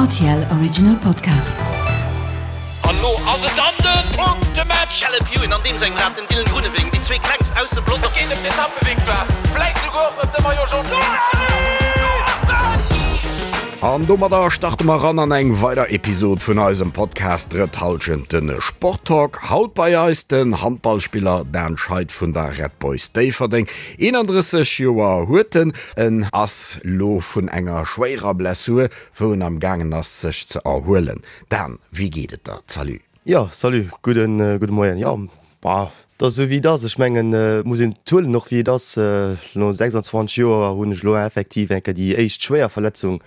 Rtl Original Podcast. An lo ass et dann den Punktematch! Caleb Ewan an deem sengem Rad, den Dylan Groenewegen, déi zwee klengst aus dem Pelotong. Et geet ëm d'Etappevictoire, vläit souguer och ëm de Maillot Jaune. An domadder starte mer ran an eng weider Episod vun eisem Podcast Drëtt Hallschent, de Sporttalk. Haut bei eis den Handballspiller Dan Scheid vun der Red Boys Déifferdeng. 31 Joer huet en. En ass lo vun enger schwéierer Blessur, wou en am gaangen ass sech ze erhuelen. Dan, wéi geet et der? Salut. Jo, salut, gudden, gudde Moien. Jo, bah, et ass esou wéi et ass. Ech mengen, et muss een et huelen och wéi et ass. No 26 Joer hunn ech elo effektiv eng Kéier déi éischt schwéier Verletzung,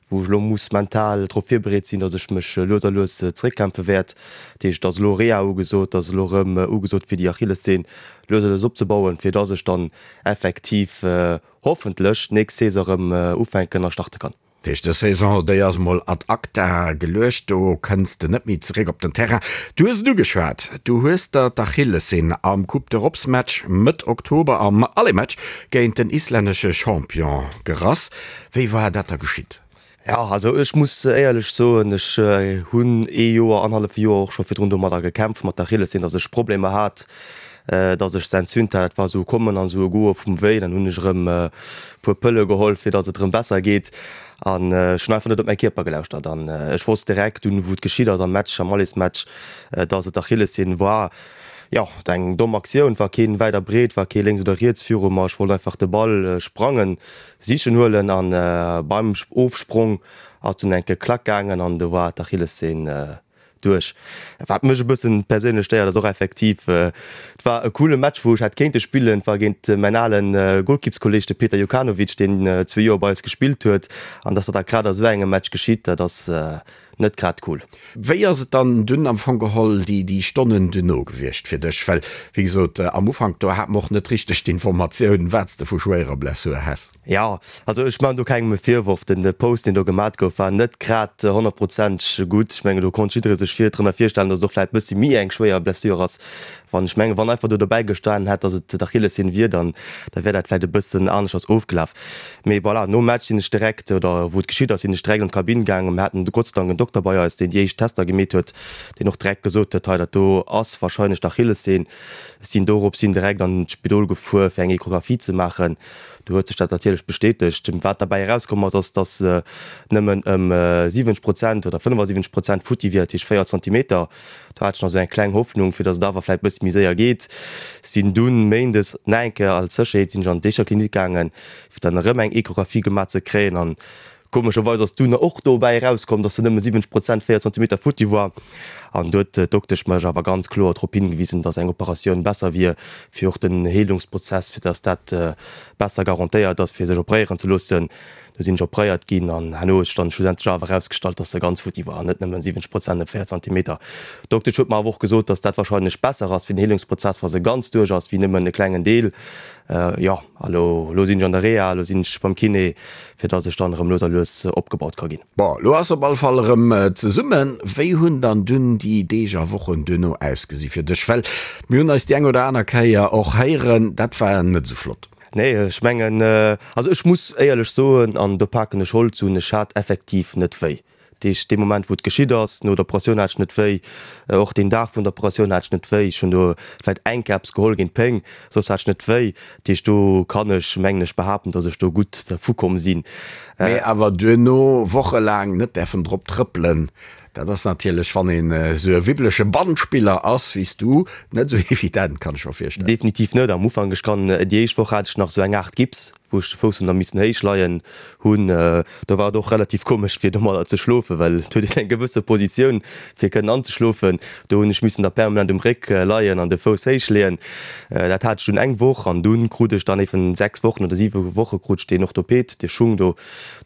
wou ech elo muss mental drop virbereet sinn, datt ech mech lues a lues zeréckkämpfe wäert. Dat heescht, et ass elo Reha ugesot, et ass elo erëm ugesot fir déi Achillessehn lues a lues opzebauen, fir datt ech dann effektiv hoffentlech d'nächst Saison erëm ufänken a starte kann. Dat heescht, dës Saison, déi ass mol ad acta geluecht, do kënns de net méi zeréck op den Terrain. Du hues et ugeschwat, du hues der d'Achillessehn am Coupe d'Europes-Match Mëtt Oktober am Aller-Match géint den islännesche Champion gerass. Wéi war dat da geschitt? Jo, also ech muss éierlech soen, ech hunn ee Joer, annerhallef Joer och scho virdrun domadder gekämpft, mat der Achillessehn, datt ech Problemer hat, datt ech se entzünt hat. Dat war esou e Kommen an esou e Goe vum Wéi. Dann hunn ech erëm e puer Pëlle geholl, fir datt et erëm besser geet. An ech hunn einfach net op mäi Kierper gelauschtert. An ech wosst direkt dunn, wou et geschitt ass am Match, am Allesmatch, datt et d'Achillessehn war. Jo, eng domm Aktioun, war keen wäit a breet, war kee lénks oder riets viru mer. Ech wollt einfach de Ball sprangen. Sichen huelen an beim Ofsprong ass dunn enke Klack gaangen an do war d'Achillessehn duerch. Wat mech e bëssen perséinlech stéiert ass och effektiv, et war e coole Match wou ech hätt kéinte spillen, et war géint mäin alen Golkippskolleg de Peter Jokanovic deen zwee Joer bei eis gespillt huet an dass dat da grad a sou engem Match geschitt, dat ass net grad cool. Wéi ass et dann dunn am Fong geholl déi déi Stonnen duerno gewiescht fir dech? Well wéi gesot am Ufank do hat mer och net richteg d'Informatioun wat s de vu schwéierer Blessur häss. Jo, also ech maachen do kengem e Virworf. Den Post deen do gemat gouf war net grad honnertprozenteg gutt. Ech mengen do konnt jidderee sech vir drënner virstellen, datt et och vläit bëssi méi eng schwéier Blessure ass. Wann ech mengen wann einfach do dobäi gestanen hätt, datt et d'Achillessehn wier, dann da wär dat vläit e bëssen aneschters ofgelaf. Mee voilà, nom Match sinn ech direkt, oder wou et geschitt ass, sinn ech direkt an d'Kabinn gaangen. Mir haten Gott sei Dank en Dokter bei eis, deen déi éischt Tester gemeet huet, deen och direkt gesot huet, hei dat do ass wahrscheinlech d'Achillessehn. Ech sinn dorops hin direkt an d'Spidol gefuer, fir eng Echographie ze maachen. Do huet sech dat natierlech bestätegt. Wat derbäi erauskomm ass, ass, dass se nëmmen ëm 70 Prozent oder 75 Prozent futti wier, dat heescht 4 Zentimeter. Do hat ech nach esou eng kleng Hoffnung, fir datt et awer vläit bëssi méi séier geet. Sinn dunn méindes nach eng Kéier als Sécherheet sinn ech an d'Eecher Klinik gaangen, fir dann erëm eng Echographie gemaach ze kréien. An komescherweis ass dunn och dobäi erauskomm, datt se nëmme 70 Prozent, 4 Zentimeter futti war. An do huet d'Doktesch mech awer ganz kloer drop hingewisen, datt eng Operatioun besser wier, fir och den Heelungsprozess, fir datt dat besser garantéiert ass, fir sech operéieren ze loossen. Du sinn ech operéiert ginn an herno huet sech dann schlussendlech awer erausgestallt, dass se ganz futti war an net nëmmen 70 Prozent op 4 Zentimeter. D'Doktesch huet mer awer och gesot, dass dat wahrscheinlech besser ass fir den Heelungsprozess, wa se ganz duerch ass, wéi nëmmen e klengen Deel. Jo, a lo, lo sinn ech an der Reha, lo sinn ech beim Kiné, fir dass ech dann erëm lues a lues opgebaut ka ginn. Bon, lo ass op alle Fall erëm zesummen. Wéi hunn dann dunn déi Deeg a Wochen duerno ausgesi fir dech? Well mir hunn eis déi eng oder aner Kéier och héieren, dat war net esou flott. Nee, ech mengen, also ech muss éierlech soen, an do paken ech Holz un, ech hat effektiv net wéi. Dat heescht, dee Moment, wou et geschitt ass, no der Operatioun hat ech net wéi, och deen Dag vun der Operatioun hat ech net wéi. Ech hunn do vläicht eng Kéier eppes geholl géint d'Péng, soss hat ech net wéi. Dat heescht, do kann ech, mengen ech, behaapten, datt ech do gutt dervukomm sinn. Mee awer duerno wochelaang net däerfen drop trëppelen, Dat ass natierlech, wann een esou e wibbleche Bandspiller ass wéi s du, net esou evident, kann ech mer virstellen. Definitiv net. Am Ufank, ech kann, déi éischt Woch hat ech nach esou eng Aart Gips, wou ech de Fouss hunn da missen héich leien hunn. Do war et och relativ komesch fir domadder ze schlofen, well et huet een eng gewësse Positioun fir kënnen anzeschlofen. Do hunn ech missen da permanent um Réck leien an de Fouss héich leeën. Dat hat ech dunn eng Woch an dunn krut ech dann eben 6 Wochen oder 7 Woche krut ech deen Orthoped, dee Schung do,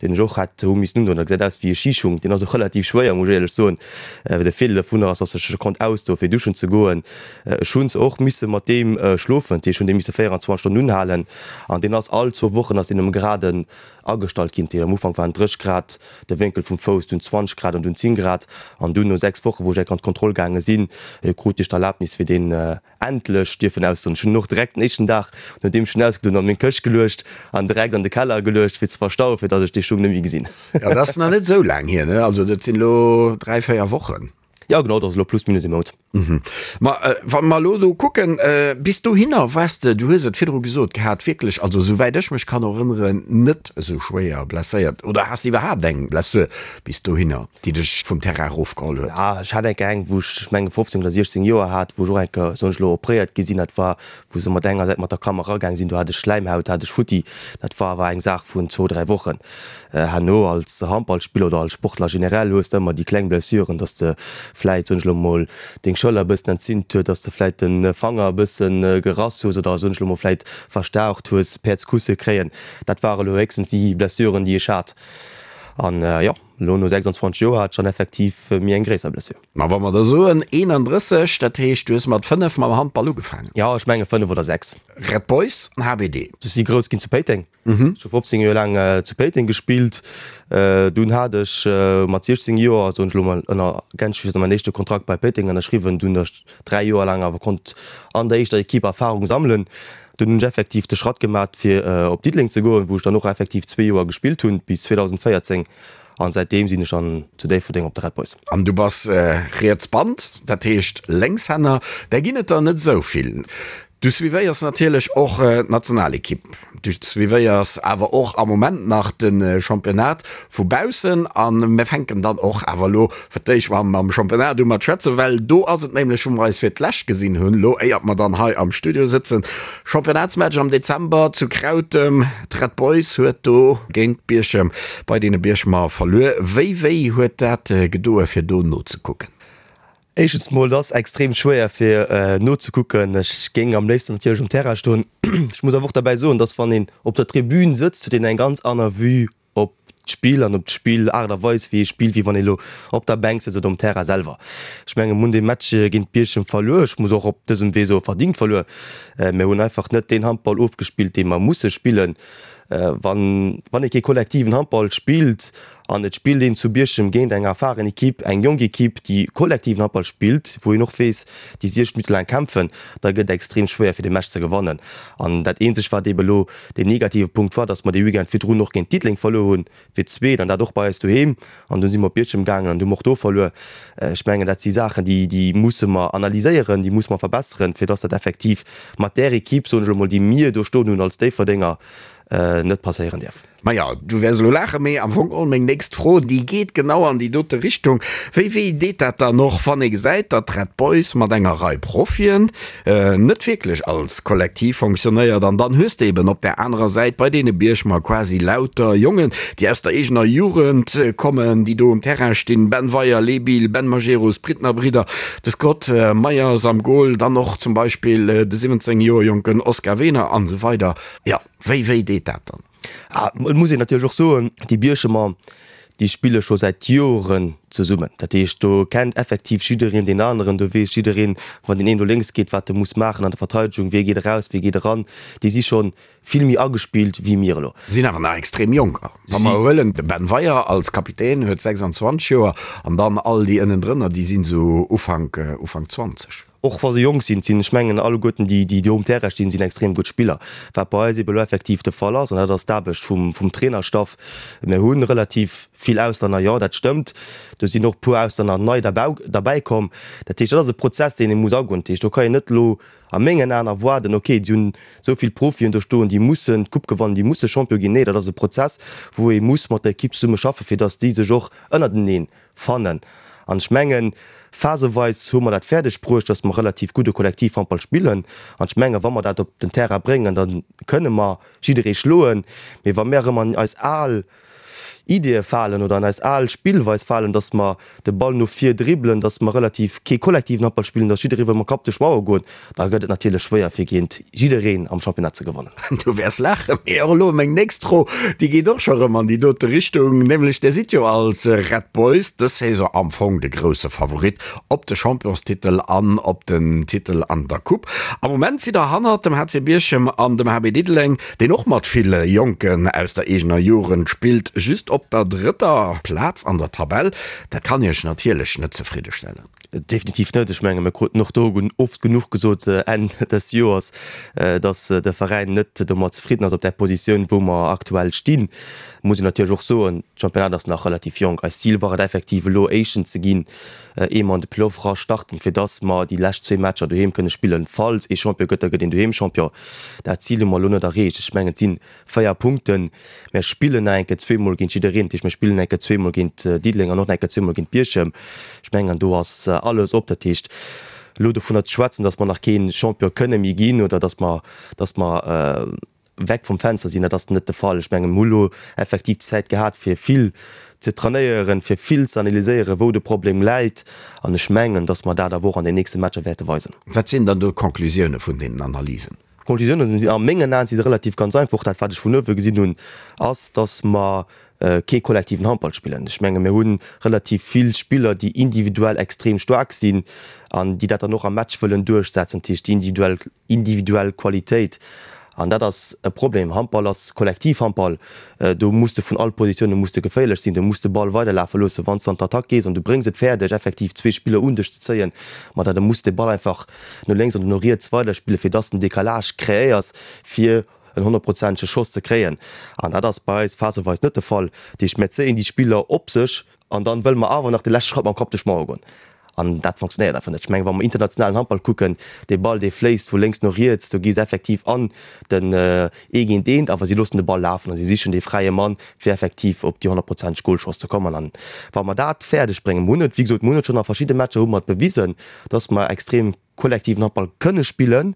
deen ech och hätt hu missen undoen. Dat gesäit aus wéi e Schischung, deen ass och relativ schwéier, muss ech éierlech soen. ech soen. De Virdeel dovunner ass, dass ech e konnt ausdoen, fir duschen ze goen. Ech hunn och misse mat deem schlofen, dat heescht, ech hunn dee misse 24 Stonnen unhalen an deen ass all zwou Wochen ass deen um Graden agestallt ginn. Dat heescht, am Ufank waren 30 Grad de Wénkel vum Fouss, dunn 20 Grad an dunn 10 Grad. An dunn no 6 Wochen, wou ech enk an d'Kontroll gaange sinn, krut ech d'Erlaabnis, fir deen endlech dierfen ausdoen. Ech hunn en och direkt den éischten Dag, nodeem ech en ausgedoen hunn, an meng Këscht geluecht an direkt an de Keller geluecht, fir ze verstauen, fir datt ech dee Schung net méi gesinn. Jo, dat ass nach net esou laang hier, ne? Also dat sinn elo 3, 4 Wochen. Jo, genau, dat ass elo plus minus ee Mount. Ma wa mer elo do kucken, bis dohinner waars de, du hues et virdru gesot gehat, wierklech, also esouwäit ech mech kann erënneren, net esou schwéier blesséiert. Oder has de iwwerhaapt eng Blessur bis dohinner, déi dech vum Terrain erofgeholl huet? Ja, ech hat eng Kéier eng, wou ech, ech mengen, 15 oder 16 Joer hat, wou ech och eng Kéier, soen ech elo, opréiert gi sinn. Dat war, wou se mat enger Säit mat der Kam eragaang sinn, do hat ech Schläimhaut, hat ech futti. Dat war awer eng Saach vun zwou, dräi Wochen. Herno als Handballspiller oder als Sportler generell hues de ëmmer déi kleng Blessuren, dass de vläit, soen ech elo mol, deng Schëller e bëssen entzünt huet, dass de vläit de Fanger e bësse gerass hues oder, soen ech elo mol, vläit verstaucht hues, Päerdskusse kréien. Dat ware elo héchstens déi Blessuren, déi ech hat. An jo, elo no 26 Joer hat ech dann effektiv méi eng gréisser Blessure. Ma wa mer da soen 31, dat heescht, du hues mat 5 mam Handball ugefaangen? Jo, ech menge 5 oder 6. Red Boys an HBD. Ech si grouss ginn zu Péiteng. Ech hu 15 Joer laang zu Péiteng gespillt. Dunn hat ech mat 16 Joer, soen ech elo mol ënner Gänsefüßer, mäin éischte Kontrakt bei Péiteng ënnerschriwwen. Dunn ech 3 Joer laang awer konnt an der éischter Ekipp Erfarung sammelen. Dunn hunn ech effektiv de Schratt gemat fir op Diddeleng ze goen, wou ech dann och effektiv zwee Joer gespillt hunn, bis 2014. An säitdeem sinn ech dann zu Déifferdeng op de Red Boys. An du bass riets Band, dat heescht Lénkshänner, där ginn et der net esou vill. Du suivéiers natierlech och d'Nationalekipp, du suivéiers awer och am Moment nach de Championnat vu baussen. A mir fänken dann och awer elo fir d'éischt mam Championnat u mat schwätzen, well do ass et nämlech, wou mer eis fir d'lescht gesinn hunn, elo éiert mer dann hei am Studio sëtzen, Championnatsmatch am Dezember zu Krautem. D'Red Boys huet do géint Bierchem bei deene Bierchemer verluer. Wéi wéi huet dat gedoe fir do nozekucken? Éischtens mol, et ass extrem schwéier fir nozekucken. Ech géing am léifsten natierlech um Terrain stoen. Ech muss awer och derbäi soen, dass wann een op der Tribün sëtzt, huet een eng ganz aner Vue op d'Spill an op d'Spill-Aart a Weis wéi ee spillt, wéi wann ee lo op der Bänk sëtzt oder um Terrain selwer. Ech menge mir hunn dee Match géint Bierchem verluer. Ech muss och op dësem Wee soe verdingt verluer. Mir hunn einfach net deen Handball ofgespillt, dee mer musse spillen. Wann wann ee kee kollektiven Handball spillt an et spillt een zu Bierchem géint eng erfaren Ekipp, eng jonk Ekipp, déi kollektiven Handball spillt, wou een och weess, déi 60 Minutte laang kämpfen, da gëtt et extrem schwéier fir dee Match ze gewannen. An dat eenzegt wat eebe lo deen negative Punkt war, datt mer dee Weekend virdrun och géint Diddeleng verluer hunn, fir d'zweet, an dat och bei eis doheem. An dunn si mer op Bierchem gaangen an hu mer och do verluer. Ech mengen, dat si Saachen, déi, déi musse mer analyséieren, déi musse mer verbesseren, fir datt dat effektiv mat där Ekipp, soen ech elo mol, déi mir do stoen hunn als Déifferdenger, net passéieren däerf. Maja, du wäers elo laachen, mee am Fong geholl meng nächst Fro, déi geet genau an déi dote Richtung. Wéi wéi deet dat dann och, wann ee gesäit, datt d'Red Boys mat enger Rei Profien net wierklech als Kollektiv fonctionnéiert an dann hues de eben op där anerer Säit bei deene Bierchemer quasi lauter Jongen, déi aus der eegener Jugend kommen, déi do um Terrain stinn, Ben Weyer, Lee Bill, Ben Majerus, d'Brittner Bridder, de Scott Meyers am Goal, dann och zum Beispill de 17 Joer jonken Oscar Wehner an esou weider. Jo, wéi wéi deet dat dann? Ah, et muss een natierlech och soen, déi Bierchemer, déi spille scho säit Joren zesummen. Dat heescht, do kennt effektiv jiddereen deen aneren, do weess jiddereen, wann deen een do lénks geet, wat e muss maachen an der Verteidegung, wie geet eraus, wie geet eran. Déi si scho vill méi agespillt wéi mir elo. Sinn awer nach extrem jonk. Wa mer huelen, de Ben Weyer als Kapitän huet 26 Joer an dann all déi ënnendrënner, déi sinn esou Ufank, Ufank 20. Och wa se jonk sinn, sinn, ech mengen, alleguerten déi, déi do um Terrain stinn, sinn extrem gutt Spiller. Wat bei eis ebe lo effektiv de Fall ass, an dat ass d'Aarbecht vum, vum Trainerstaff, mir hu relativ vill Auslänner, jo, dat stëmmt. Do sinn och e puer Auslänner nei derbau, derbäikomm. Dat heescht, dat ass e Prozess, deen ee muss agoen. Dat heescht, do ka een net elo a mengen Aen erwaarden, okay, déi hunn esou vill Profien do stoen, déi mussen d'Coupe gewannen, déi musse Champion ginn. Nee, dat ass e Prozess, wou ee muss mat der Ekipp zesumme schaffen, fir datt déi sech och ënnerteneen fannen. An ech mengen, phaseweis hu mer dat fäerdeg bruecht, dass mer relativ gudde Kollektivhandball spillen. An ech mengen, wa mer dat op den Terrain bréngen, da kënne mer jidderee schloen. Mee wa mir erëm an eis al. Ideeë falen oder an eis al Spillweis falen, dass mer de Ball no vir dribbelen, dass mer relativ kee kollektiven Handball spillen, dass jidderee wëll mam Kapp duerch d'Mauer goen, da gëtt et natierlech schwéier fir géint jiddereen am Championnat ze gewannen. Du wäers laachen, mee och elo meng nächst Fro, déi geet och scho rëm an déi dote Richtung, nämlech Dir sidd jo als Red Boys dës Saison am Fong de grousse Favorit op de Championstitel an op den Titel an der Coupe. Am Moment sidd Der hannert dem HC Bierchem an dem HB Diddeleng, deen och mat ville Jonken aus der eegener Jugend spillt, just op der drëtter Plaz an der Tabell. Dat kann Iech natierlech net zefriddestellen. Definitiv net. Ech menge mir kruten och do oft genuch gesot Enn des Joers, datt de Veräin net domat zefridden ass op där Positioun, wou mer aktuell stinn. Muss een natierlech och soen, d'Championnat ass nach relativ jonk. Eist Zil war et effektiv elo Éischten ze ginn, ier mer an de Playoff era starten, fir datt mer déi lescht zwee Matcher doheem kënne spillen. Falls ee Champion gëtt, da gëtt een doheem Champion. Dat Zil hu mer elo net erreecht. Ech mengen, et si 4 Punkten. Mär spillen nach eng Kéier zweemol géint jiddereen. Dat heescht, mir spillen eng Kéier zweemol géint Diddeleng an och nach eng Kéier zweemol géint Bierchem. Ech mengen, do ass alles op. Dat heescht, elo dovunner ze schwätzen, datt mer nach kee Champion kënne méi ginn oder datt mer, datt mer weg vum Fenster sinn, dat ass net de Fall. Ech mengen, mir hu lo effektiv d'Zäit gehat, fir vill ze trainéieren, fir vill ze analyséieren, wou de Problem läit. An ech mengen, datt mer dat awer och an den nächste Matcher wäerte weisen. Wat sinn dann do d'Conclusioune vun deenen Analysen? D'Conclusiounen sinn a mengen Aen si se relativ ganz einfach. Dat wat ech vun uewe gesinn hunn, ass, datt mer kee kollektiven Handball spillen. Ech menge mir hu relativ vill Spiller, déi individuell extrem staark sinn an déi dat dann och am Match wëllen duerchsetzen, dat heescht déi individuell individuell Qualitéit. An dat ass e Problem. Handball ass Kollektivhandball. Do muss de vun all Positioune muss de geféierlech sinn. Du muss de Ball weiderlafe loossen. Wann s de an d'Attack gees an du bréngs et fäerdeg, effektiv zwee Spiller un dech ze zéien, ma da muss de Ball einfach no lénks oder no riets weiderspillen, fir dass de en Décalage kreéiers, fir en honnertprozentege Schoss ze kréien. An dat ass bei eis phaseweis net de Fall. Dat heescht, mir zéien déi Spiller op sech an dann wëlle mer awer nach de leschte Schratt mam Kapp duerch d'Mauer goen. An dat fonctionnéiert einfach net. Ech mengen, wa mer internationalen Handball kucken, dee Ball, dee fléisst vu lénks no riets, do gi se effektiv an den ee géint eent, awer si loossen de Ball lafen a si sichen dee fräie Mann, fir effektiv op déi honnertprozenteg Golchance ze kommen. An wa mer dat fäerdeg bréngen, mer hunn et, wéi gesot, mer hunn et schonn a verschidde Matcher hu mer et bewisen, dass mer extrem kollektiven Handball kënne spillen.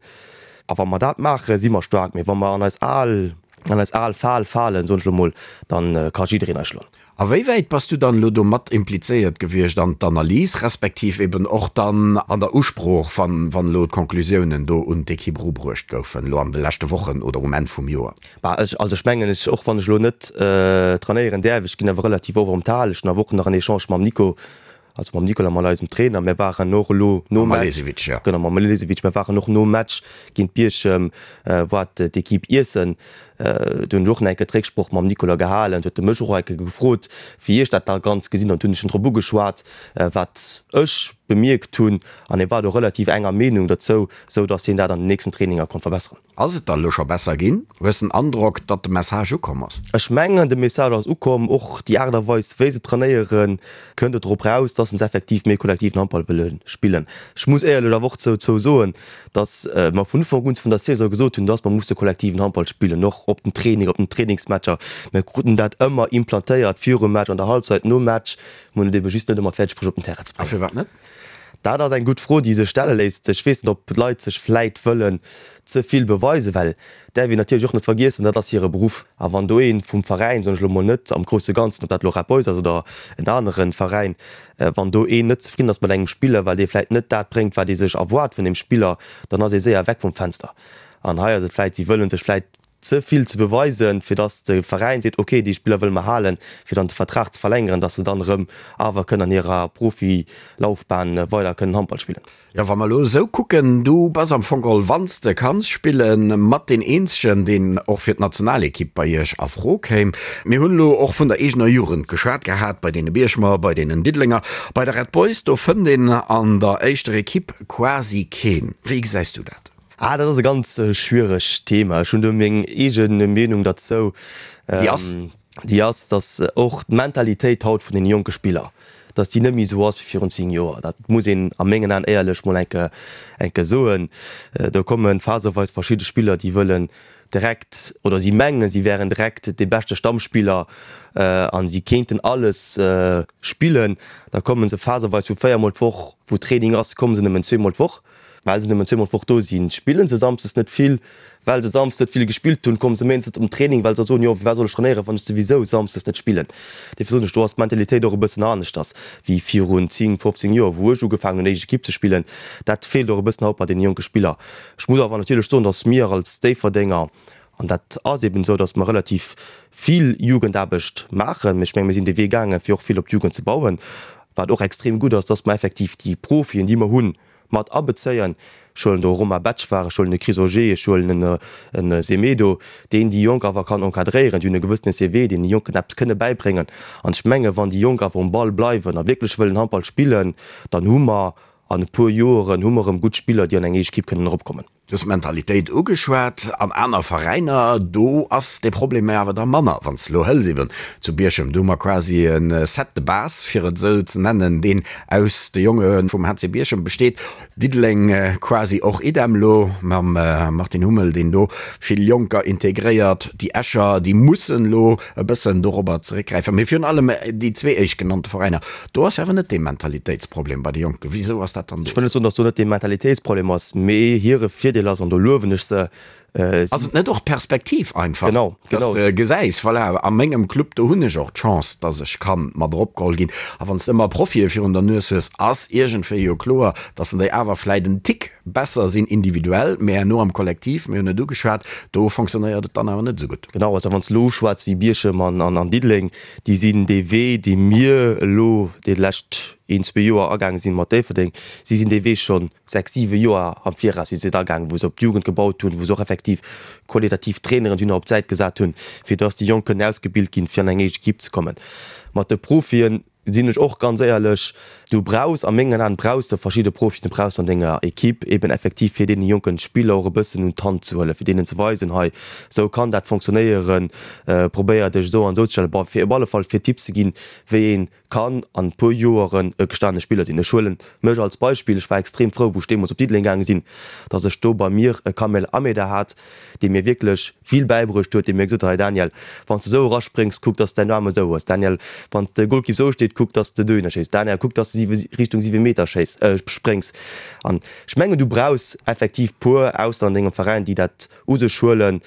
A wa mer dat maachen, si mer staark. Mee wa mer an eis al, an eis al Fal falen, soen ech elo mol, dann ka jiddereen eis schloen. A wéi wäit bass du dann elo do mat implizéiert gewiescht an d'Analys, respektiv eben och dann an der Usprooch, wann, wann elo d'Conclusiounen do un d'Ekipp erubruecht goufen, elo an de leschte Wochen oder um Enn vum Joer? Bah, ech, also ech mengen, ech, och wann ech elo net trainéieren däerf, ech ginn awer relativ oft op d'Hal. Ech hunn awer och nach en Echange mam Nico, Also mam Nikola, mat eisem Trainer. Mir waren och elo nom Match. Malesevic, jo. Genau, mam Malesevic. Mir waren och nom Match géint Bierchem, war d'Equipe iessen. Do hunn ech och nach eng Kéier d'Récksproch mam Nikola gehalen. Do huet e mech och eng Kéier gefrot, wéi ech dat da ganz gesinn hunn. An do hunn ech en drop ugeschwat, wat ech bemierkt hunn. An hie war do relativ enger Meenung dozou, esou datt hien dat an den nächsten Traininger konnt verbesseren. Ass et da lo scho besser ginn? Hues den Androck, datt de Message ukomm ass? Ech mengen, de Message ass ukomm. Och déi Aart a Weis, wéi se trainéieren, kënnt et drop raus, dass se effektiv méi kollektiven Handball wëlle spillen. Ech muss éierlech awer och dozou soen, dass mer vun Ufank un vun der Saison gesot hunn, dass mer musse kollektiven Handball spillen, och op den Training, op den Trainingsmatcher. Mir kruten dat ëmmer implantéiert, virum Match, an der Halbzeit, nom Match. Mir hunn et ebe just net ëmmer fäerdeg bruecht, op den Terrain ze bréngen. A firwat net? Dat ass eng gutt Fro, déi sech stelle léisst. Ech weess net, ob d'Leit sech vläit wëllen ze vill beweisen, well däerf een natierlech och net vergiessen, dat ass hire Beruff. A wann do ee vum Veräin, soen ech elo mol net am grousse Ganzen, ob dat elo Red Boys ass oder en anere Veräin, wann do een net zefridden ass mat engem Spiller, well dee vläit net dat bréngt, wat ee sech erwaart vun deem Spiller, dann ass ee séier weg vum Fenster. An hei ass et vläit, si wëlle sech vläit ze vill ze beweisen, fir dass de Veräin seet, ok, déi Spiller wëlle mer halen, fir dann de Vertrag ze verlängeren, dass se dann erëm awer kënnen an hirer Profilaufbahn weider kënnen Handball spillen. Jo, wa mer elo esou kucken, du bass am Fong geholl, wann s de kanns spillen, mat deen eenzegen, deen och fir d'Nationalekipp bei iech a Fro kéim. Mir hunn elo och vun der eegener Jugend geschwat gehat, bei deene Bierchemer, bei deenen Diddelenger, bei der Red Boys, do fënnt een an der éischter Ekipp quasi keen. Wéi gesäis du dat? Ah, dat ass e ganz schwieregt Thema. Ech hunn do meng eege Meenung derzou. Déi ass? Déi ass, datt och d'Mentalitéit haut vun deene jonke Spiller, datt déi net méi esou ass wéi virun 10 Joer. Dat muss een a mengen Aen éierlech mol eng Kéier, eng Kéier soen. Do komme phaseweis verschidde Spiller, déi wëllen direkt, oder si mengen, si wären direkt dee beschte Stammspiller a si kéinten alles spillen. Da komme se phaseweis vu véiermol d'Woch, wou Training ass, komme se nëmmen zweemol d'Woch. Well se nëmmen zweemol d'Woch do sinn, spillen se samsdes net vill. Well se samsdes net vill gespillt hunn, komme se méindes net op den Training, well se da soen, jo, firwat soll ech trainéieren, wann ech souwisou samsdes net spillen. Dofir soen ech, do ass d'Mentalitéit och e bëssen aneschters wéi virun 10, 15 Joer, wou ech ugefaangen hunn, éischt Ekipp ze spillen. Dat feelt och e bëssen haut bei deene jonke Spiller. Ech muss awer natierlech soen, datt mir als Déifferdenger, an dat ass eben esou, datt mer relativ vill Jugendaarbecht maachen, mee ech menge mir sinn dee Wee gaangen, fir och vill op d'Jugend ze bauen, wat och extrem gutt ass, datt mer effektiv déi Profien, déi mer hunn, mat abezéien. Ech huelen do e Romain Betschwar, ech huelen e Chris Auger, ech huelen e Semedo, deen déi Jonk awer kann encadréieren. Déi hunn e gewëssene CV, deen de Jonken eppes kënne bäibréngen. An ech menge wann déi Jonk awer um Ball bleiwen a wierklech wëllen Handball spillen, dann hu mer an e puer Joeren hu mer erëm gutt Spiller, déi an eng éischt Ekipp kënnen eropkommen. Du hues d'Mentalitéit ugeschwat. An aner Veräiner, do ass dee Problem awer da manner. Wann s de elo hëls eben zu Bierchem, do hu mer quasi e Set de base, fir et esou ze nennen, deen aus de Jonge vum HC Bierchem besteet. Diddeleng quasi och idem elo mam Martin Hummel, deen do vill Jonker integréiert. Déi Escher, déi mussen elo e bëssen dorobber zeréckgräifen. Mee virun allem déi zwee éischtgenannte Veräiner, Do ass awer net dee Mentalitéitsproblem bei de Jonken. Wisou ass dat dann do? Ech wëll net soen, datt do net dee Mentalitéitsproblem ass, mee hire Virdeel ass, an do luewen ech se, si. Ass et net och d'Perspektiv einfach? Genau, genau. Dass de gesäis, voilà, a mengem Club, do hunn ech och d'Chance, dass ech ka mat eropgeholl ginn. A wann s de ëmmer Profie virun der Nues hues, ass iergendwéi jo kloer, dass en déi awer vläit en Tick besser sinn individuell, mä herno am Kollektiv, mir hunn et ugeschwat, do fonctionnéiert et dann awer net esou gutt. Genau, also wann s de elo uschwätz wéi Bierchem an Diddeleng, déi sinn dee Wee, dee mir elo déi lescht een, zwee Joer agaange sinn mat Déifferdeng, si sinn dee Wee schonn sechs, siwe Joer am Viraus si se agaangen, wou se op d'Jugend gebaut hunn, wou se och effektiv qualitativ Traineren dunn op d'Säit gesat hunn, fir dass déi Jonk kënnen ausgebilt ginn, fir an eng éischt Ekipp ze kommen. Mat de Profien Sinn ech och ganz éierlech, du brauchs, a mengen Aen brauchs de verschidde Profien, du brauchs an denger Equipe eben effektiv fir deene jonken Spiller och e bëssen un d'Hand ze huelen, fir deenen ze weisen, hei esou kann dat fonctionnéieren, probéier dech esou an esou ze stellen, bon fir op alle Fall fir Tipps ze ginn, wéi ee kann an e puer Joeren e gestane Spiller sinn. Ech huelen mech als Beispill, ech war extrem frou wou ech deemools op Diddeleng gaange sinn, datt ech do bei mir e Kamel Ameda hat, dee mir wierklech vill bäibruecht huet, dee mir gesot huet, Hei Daniel, wann s de esou eraspréngs, kuck, dass de däin Aarm esou hues. Daniel, wann de Golkipp esou steet, kuck, dass de dohinner schéiss. Daniel, kuck, dass de Richtung 7 Meter schéiss, spréngs. An ech mengen, du brauchs effektiv puer Ausser an dengem Veräin, déi dat u sech huelen.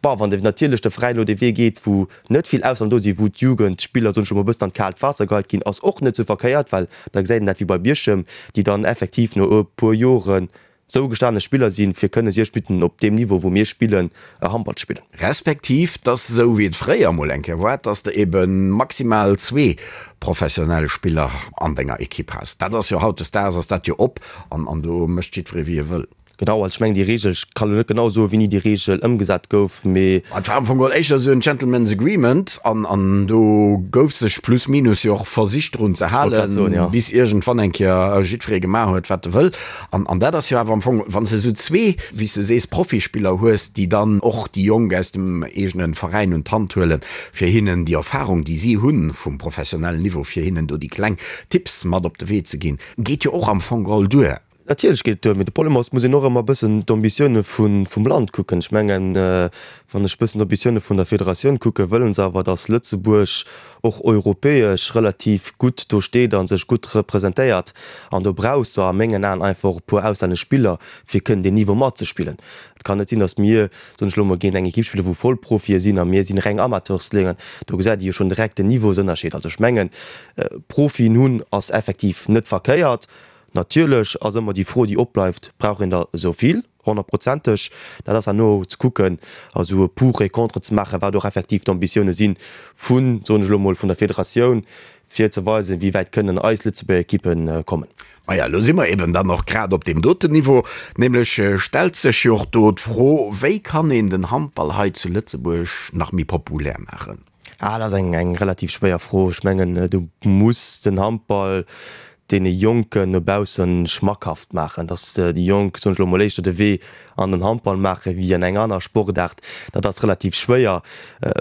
Bon, wann de natierlech de Veräin elo dee Wee geet, wou net vill Ausser do sinn, wou d'Jugendspiller, soen ech elo mol, e bëssen an d'kaalt Waasser geheit ginn, ass och net sou verkéiert, well da gesäit een dat wéi bei Bierchem, déi dann effektiv no e puer Joren sou gestane Spiller sinn, fir kënne 60 Minutten op deem Niveau, wou mir spillen, Handball ze spillen. Respektiv dass, esou wéi et fréier emol eng Kéier war, dass de ebe maximal zwee professionell Spiller an denger Ekipp has. Dat ass jo hautdesdaags ass dat jo op an do mécht jiddweree wéi e wëll. Genau, also ech mengen déi Reegel, ech kann elo net genau soen, wéini déi Reegel ëmgesat gouf, mee. Et war am Fong geholl éischter esou en Gentleman's Agreement an an do gouf sech plus minus jo och versicht drun ze halen, bis iergendwann eng Kéier jiddweree gemaach huet wat e wëll. An, an dat ass jo awer am Fong, wann s de esou zwee, wéi s de sees, Profispiller hues, déi dann och déi Jonk aus dem eegene Veräin un d'Hand huelen, fir hinnen déi Erfahrung, déi si hunn vum professionellen Niveau, fir hinnen do déi kleng Tipps mat op de Wee ze ginn, geet jo och am Fong geholl duer. Natierlech geet et duer, mee de Problem ass, et muss een och ëmmer e bëssen d'Ambitioune vum Land kucken. Ech mengen, wann ech e bëssen d'Ambitioune vun der Federatioun kucken, wëlle se awer, datt Lëtzebuerg och europäesch relativ gutt do steet a sech gutt representéiert. An do brauchs de a mengen Aen einfach och e puer auslännesch Spiller, fir kënnen deen Niveau matzespillen. Et kann net sinn, datt mir, soen ech elo emol, géint eng Ekipp spillen, wou Vollprofie sinn a mir sinn reng Amateursléngen. Do gesäit ee jo schonn direkt den Niveausënnerscheed. Also ech mengen, Profien hunn ass effektiv net verkéiert. Natierlech ass ëmmer déi Fro, déi opbleift, Brauch een der esou vill? Honnertprozenteg. Dat ass herno ze kucken a sou e Pour et contre ze maachen, wat och effektiv d'Ambitioune si vun, soen ech elo mol, vun der Federatioun, fir ze weisen, wéi wäit kënnen eis Lëtzebuerger Ekippe kommen. Maja, elo si mer eben dann och grad op deem doten Niveau. Nämlech stellt sech jo och do d'Fro, Wéi kann een den Handball hei zu Lëtzebuerg nach méi populär maachen? Ah, dat ass eng, eng relativ schwéier Fro. Ech mengen, du muss den Handball deene Jonken no baussen schmackhaft maachen, dass déi Jonk, soen ech elo mol, éischter de Wee an den Handball maache wéi an eng aner Sportaart. Dat ass relativ schwéier.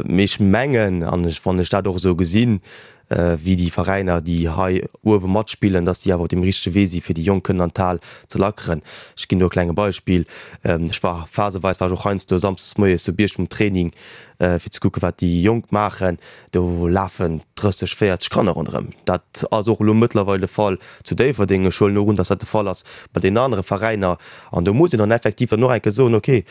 Mee ech mengen, an ech, wann ech dat och esou gesinn. wéi déi Veräiner, déi hei uewe matspillen, dass déi awer op deem richtege Wee si fir déi Jonk kënnen an d'Hal ze lackeren. Ech ginn do e klenge Beispill, Ech war phaseweis war ech och heiansdo samsdes moies zu Bierchem um Training, fir ze kucken, wat déi Jonk maachen. Do lafen 30, 40 Kanner ronderëm. Dat ass och elo mëttlerweil de Fall zu Déifferdeng. Ech huelen och un, dass dat de Fall ass bei deenen anere Veräiner. An do muss een dann effektiv dann och eng Kéier soen, okay,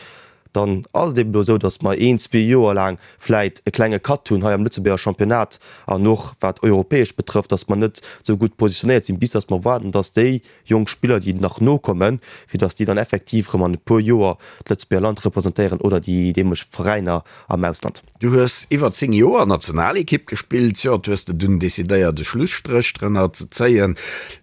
Dann ass et eben elo esou, datt mer een, zwee Joer laang vläit e klenge Cut hunn hei am Lëtzebuerger Championnat an och wat europäesch betrëfft, datt mer net esou gutt positionéiert sinn, bis datt mer waarden, datt déi jonk Spiller, déi nach nokommen, fir datt déi dann effektiv erëm an e puer Joer d'Lëtzebuerger Land representéieren oder déi deemoleg Veräiner am Ausland. Du hues iwwer 10 Joer Nationalekipp gespillt, jo, et hues de dunn decidéiert e Schlusstréch drënner ze zéien.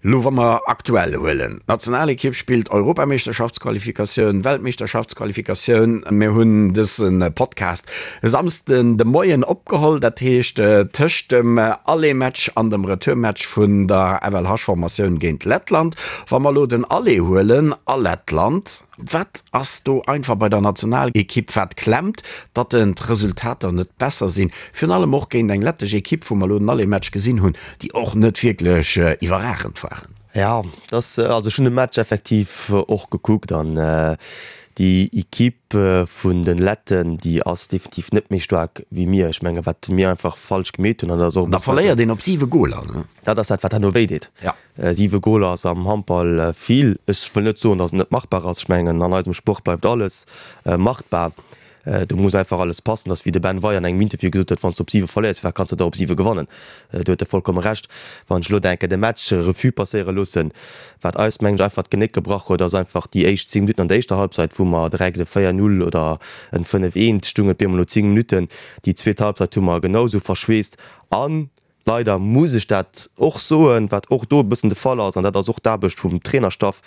Lo wa mer aktuell huelen, d'Nationalekipp spillt Europameeschterschaftsqualifikatioun, Weltmeeschterschaftsqualifikatioun. Mir hunn dëse Podcast e Samsden de Moien opgeholl, dat heescht tëscht dem Aller-Match an dem Retour-Match vun der FLH-Formatioun géint Lettland. Wa mer lo den Aller huelen a Lettland, Wat ass do einfach bei der Nationalekipp wat klemmt, datt den d'Resultater net besser sinn, virun allem och géint eng lettesch Ekipp, wou mer elo den Aller-Match gesinn hunn, déi och net wierklech iwwerragend waren? Jo, dass, also ech hunn de Match effektiv och gekuckt an déi Ekipp vun de Letten, déi ass definitiv net méi staark wéi mir. Ech menge wat mir einfach falsch gemeet hunn, an dat ass och e Da bëssen verléiert een op 7 Goler, ne? Dat ass dat wat herno wéi deet. Ja. 7 Goler ass am Handball vill. Ech wëll net soen, datt et net machbar ass. Ech mengen, an eisem Sport bleift alles machbar. Do muss einfach alles passen. Dat ass wéi de Ben Weyer an engem Interview gesot huet, Wann s de op 7 verléiers, firwat kanns de da op 7 gewannen? Do huet e vollkomme Recht. Wann ech elo denken, de Match Revue passéiere loossen, wat eis, mengen ech, einfach d'Genéck gebrach huet, ass einfach déi éischt 10 Minutten an der éischter Halbzeit, wou mer direkt e 4, 0 oder en 5, 1 stungen, et bemol no 10 Minutten. Déi zweet Halbzeit hu mer genau esou verschweesst an Leider muss ech dat och soen, wat och do e bëssen de Fall ass, an dat ass och d'Aarbecht vum Trainerstaff,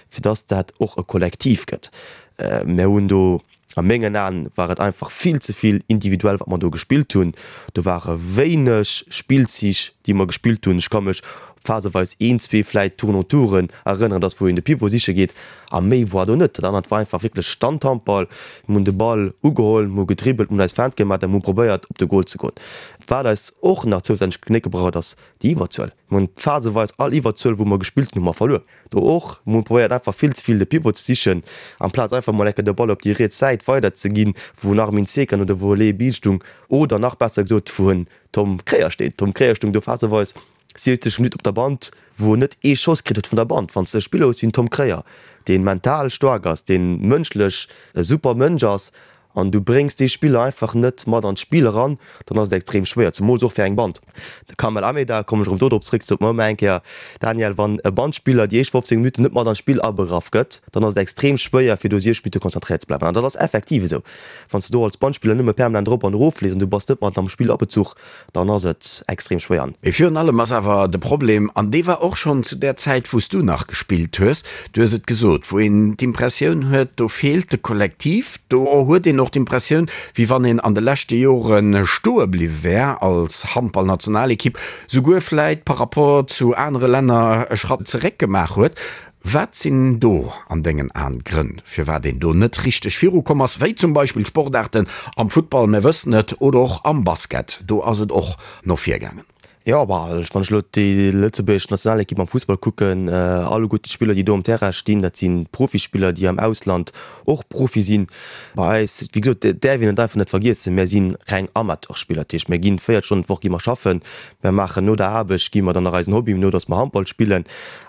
fir dass dat och e Kollektiv gëtt. Mir hunn do, a mengen Aen war et einfach vill ze vill individuell, wat mer do gespillt hunn. Do ware wéineg Spillzich, déi mer gespillt hunn. Ech ka mech phaseweis een, zwee vläit Tourne-en-touren erënneren, dass wou een de Pivot siche geet, a méi war do net. Dat anert war einfach wierklech Standhandball. Mir hunn de Ball ugeholl, mir hu gedribbelt, mir hunn eis Feinte gemaach a mir hu probéiert, op de Gol ze goen. Wat eis och nach zousätzlech d'Genéck gebrach huet, ass déi Iwwerzuel. Mir hunn phaseweis all Iwwerzuel, wou mer gespillt hunn, hu mer verluer. Do och, mir hunn probéiert einfach vill ze vill de Pivot ze sichen, amplaz einfach mol enke de Ball op déi riets Säit weider ze ginn, wou en Armin Zekan oder wou e Léi Biel stung, oder nach besser gesot, wou en Tom Kréier steet. Tom Kréier stung do phaseweis 70 Minutten op der Band, wou en net ee Schoss kritt huet vun der Band. Wann s de e Spiller hues wéi den Tom Kréier, dee mental staark ass, dee mënschlech e super Mënsch ass, an du bréngs dee Spiller einfach net mat an d'Spill eran, dann ass et extrem schwéier, zemools och fir eng Band. De Kamel Ameda, kommen ech erëm do drop zréck, sot mer ëmmer eng Kéier, Daniel, wann e Bandspiller déi éischt 15 Minutten net mat an d'Spill abegraff gëtt, dann ass et extrem schwéier fir do 60 Minutte konzentréiert ze bleiwen. An dat ass effektiv esou. Wann s de do als Bandspiller nëmme permanent erop an erof fliss an du bass net mat am Spill abezuch, dann ass et extrem schwéier. An. Mee virun allem ass awer de Problem, an dee war och schonn zu där Zäit, wou s du nach gespillt hues, du hues et gesot, wou een d'Impressioun huet, do feelt de Kollektiv, do huet een och d'Impressioun, wéi wann een an de leschte Jore stoe bliwwe wär als Handballnationalekipp, souguer vläit par rapport zu anere Länner e Schratt zeréck gemaach huet. Wat sinn do an dengen Aen d'Grënn, firwat een do net richteg virukomm ass, wéi zum Beispill Sportaarten am Futtball, mir wëssen et, oder och am Basket, do ass et och no vir gaangen? Jo, bah, wann ech elo déi lëtzebuergesch Nationalekipp am Fussball kucken, alleguerten d'Spiller, déi do um Terrain stinn, dat si Profispiller, déi am Ausland och Profi sinn. Bei eis, wéi gesot, dat däerf een et einfach net vergiessen, mir si reng Amateurspiller, dat heescht, mir ginn 40 Stonnen d'Woch gi mer schaffen, mir maachen no der Aarbecht gi mer dann nach eisen Hobby no, datt mer Handball spillen.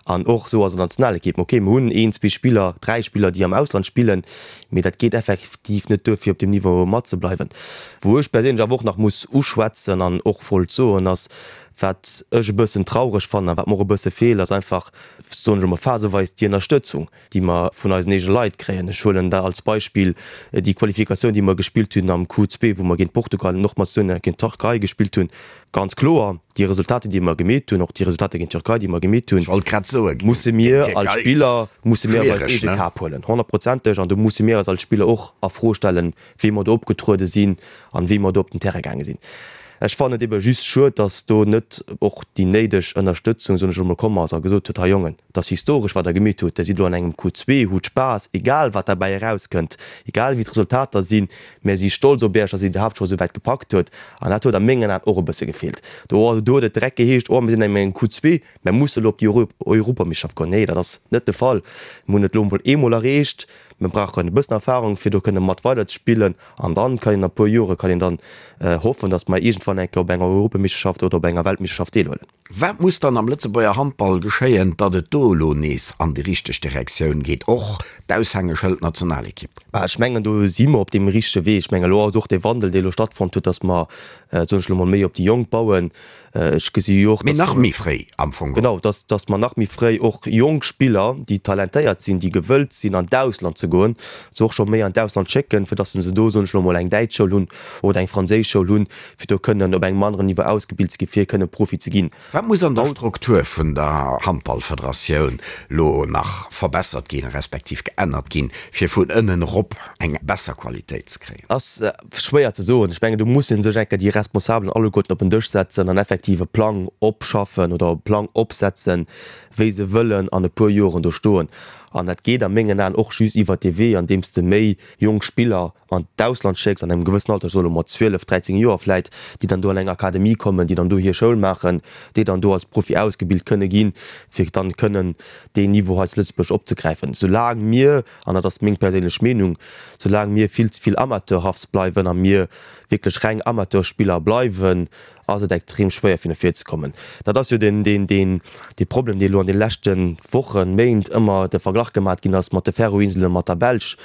An och esou ass et an der Nationalekipp. Ok, mir hunn een, zwee Spiller, dräi Spiller, déi am Ausland spillen, mee dat geet effektiv net duer, fir op deem Niveau matzebleiwen. Wou ech perséinlech awer och nach muss uschwätzen an och wollt soen, ass, wat ech e bëssen traureg fannen a wat mer och e bësse feelt, ass einfach, soen ech emol, phaseweis déi Ënnerstëtzung, déi mer vun eisen eegene Leit kréien. Ech huelen da als Beispill déi Qualifikatioun, déi mer gespillt hunn am Q2, wou mer géint Portugal an och Mazedonien a géint d'Türkei gespillt hunn. Ganz kloer, déi Resultater, déi mer gemeet hunn, och déi Resultater géint d'Türkei, déi mer gemeet hunn, musse mir als Spiller, musse mir op eis eege Kap huelen, honnertprozenteg. An do musse mir eis als Spiller och a Fro stellen, wéi mer do opgetruede sinn an wéi mer do op den Terrain gaange sinn. Ech fannen et ebe just schued, dass do net och déi néideg Ënnerstëtzung, soen ech elo mol, komm ass a gesot huet, Hei Jongen, et ass historesch wat der gemeet hutt, der sidd elo an engem Q2, hutt Spaass, egal wat derbäi erauskënnt, egal wéi d'Resultater sinn, mär si stolz op iech, dass dir et iwwerhaapt scho esou wäit gepackt hutt. An dat huet a mengen Aen och e bësse gefeelt. Do huet et direkt geheescht, oh mir sinn an engem Q2, Mär musse elo op déi Europameeschterschaft goen. Nee, dat ass net de Fall. Mir hunn et elo emol eemol erreecht. Mir brauchen e bëssen Erfahrung, fir do kënne mat weiderzespillen. An dann kann een a puer Jore kann een dann hoffen, datt mer iergendwann eng Kéier op enger Europameeschterschaft oder op enger Weltmeeschterschaft deelhuelen. Wat muss dann am Lëtzebuerger Handball geschéien, datt et do elo nees an déi richteg Direktioun geet, och d'Aushängeschëld Nationalekipp? Ech mengen, do si mer op deem richtege Wee. Ech mengen, elo ass och dee Wandel, dee elo stattfonnt huet, datt mer, soen ech elo mol, méi op déi Jonk bauen. Ech gesi jo och, Mee nach méi fréi am Fong. Genau, dass, dass mer nach méi fréi och jonk Spiller, déi talentéiert sinn, déi gewëllt sinn an d'Ausland ze goen, se och scho méi an d'Ausland schécken, fir dass se do, soen ech elo mol, eng däitsch Schoul hunn oder eng franséisch Schoul hunn, fir do kënnen op engem aneren Niveau ausgebilt ze ginn, fir kënnen Profi ze ginn. Wat muss an der Struktur vun der Handballfederatioun lo nach verbessert ginn, respektiv geännert ginn, fir vun ënnen erop eng besser Qualitéit ze kréien? Ass schwéier ze soen. Ech mengen, do musse sech eng Kéier déi Responsabelen alleguerten op en Dësch setzen an effektiv e Plang opschaffen oder e Plang opsetzen, wéi se wëllen an e puer Joren do stoen. An dat geet a mengen Aen och just iwwert dee Wee, andeems de méi jonk Spiller an d'Ausland schécks an engem gewëssen Alter, ech soe lo mol 12, 13 Joer vläit, déi dann do an eng Akademie kommen, déi dann do hir Schoul maachen, déi dann do als Profi ausgebilt kënne ginn, fir dann kënnen deen Niveau hei zu Lëtzebuerg opzegräifen. Soulaang mir an dat ass meng perséinlech Meenung, soulaang mir vill ze vill amateurhaft bleiwen a mir wierklech reng Amateurspiller bleiwen, ass et extrem schwéier fir no vir ze kommen. Dat ass jo den, deen, deen, dee Problem, dee elo an de leschte Wochen, Méint ëmmer de Verglach gemat ginn ass mat de Färöer-Inselen, mat der Belsch.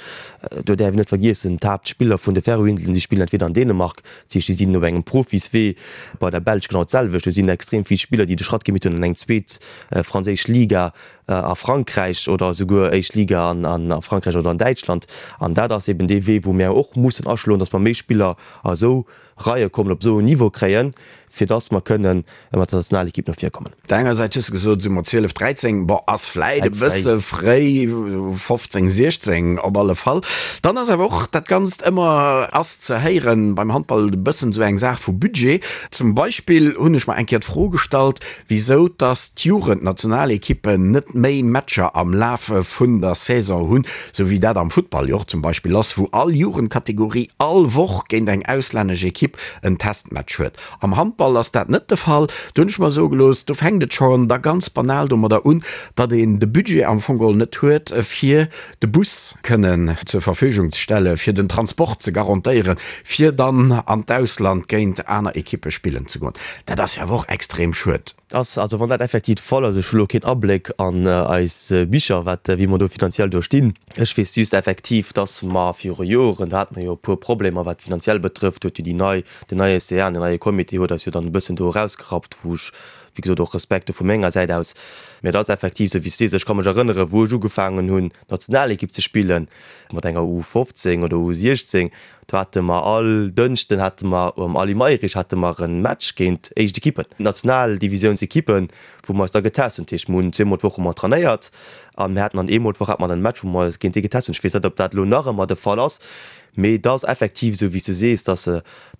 Do däerf een net vergiessen, d'Haaptspiller vun de Färöer-Inselen, déi spillen entweder an Dänemark, dat heescht, déi sinn op engem Profiswee, bei der Belsch genau d'selwecht, do sinn extrem vill Spiller, déi de Schratt gemeet hunn an eng zweet franséisch Liga, a Frankräich oder esouguer éischt Liga a Frankräich oder an Däitschland. An dat ass eben dee Wee, wou mir och mussen aschloen, datt mer méi Spiller a esou Reie kommen, op esou en Niveau kréien, fir datt mer kënnen mat der Nationalekipp no vir kommen. Op der enger Säit hues de gesot, esou mat 12, 13, bon, ass vläit e bësse fréi, 15, 16 op alle Fall. Dann ass awer och dat Ganzt ëmmer, ass ze héieren, beim Handball e bëssen esou eng Saach vu Budget. Zum Beispill hunn ech mer eng Kéier d'Fro gestallt, wisou dass d'Jugendnationalekippen net méi Matcher am Lafe vun der Saison hunn, sou wéi dat am Futtball jo och zum Beispill ass, wou all Jugendkategorie all Woch géint eng auslännesch Ekipp en Testmatch huet. Am Handball ass dat net de Fall. Do hunn ech mer soe gelooss, do fänkt et schonn da ganz banal domadder un, datt een de Budget am Fong geholl net huet, fir de Bus kënnen zur Verfügung ze stellen, fir den Transport ze garantéieren, fir dann an d'Ausland géint aner Ekippe spillen ze goen. Dat ass jo awer och extrem schued. Ass, also wann dat effektiv de Fall ass, ech hu lo keen Abléck an eis Bicher, wat, wéi mer do finanziell do stinn. Ech weess just effektiv, dass mer viru Joren, do hate mer jo e puer Problemer wat finanziell betrëfft, huet jo déi nei, den neie CA, den neie Comité huet eis jo dann e bëssen do erausgerappt, wou ech, wéi gesot, och Respekt do vu menger Säit aus. Mä et ass effektiv esou wéi s de sees. Ech ka mech erënneren, wou ech ugefaangen hunn, Nationalekipp ze spillen, mat enger U15 oder U16, do hate mer all Dënschden hate mer um Aly Mayrisch hate mer e Match géint éischt Ekippen, Nationaldivisiounsekippen, wou mer eis da getest hunn. Dat heescht, mer hunn zweemol d'Woch hu mer trainéiert a mir haten dann eemol d'Woch hate mer dann e Match, wou mer eis géint déi getest hunn. Ech weess net, ob dat elo nach ëmmer de Fall ass, mee et ass effektiv esou, wéi s de sees, dass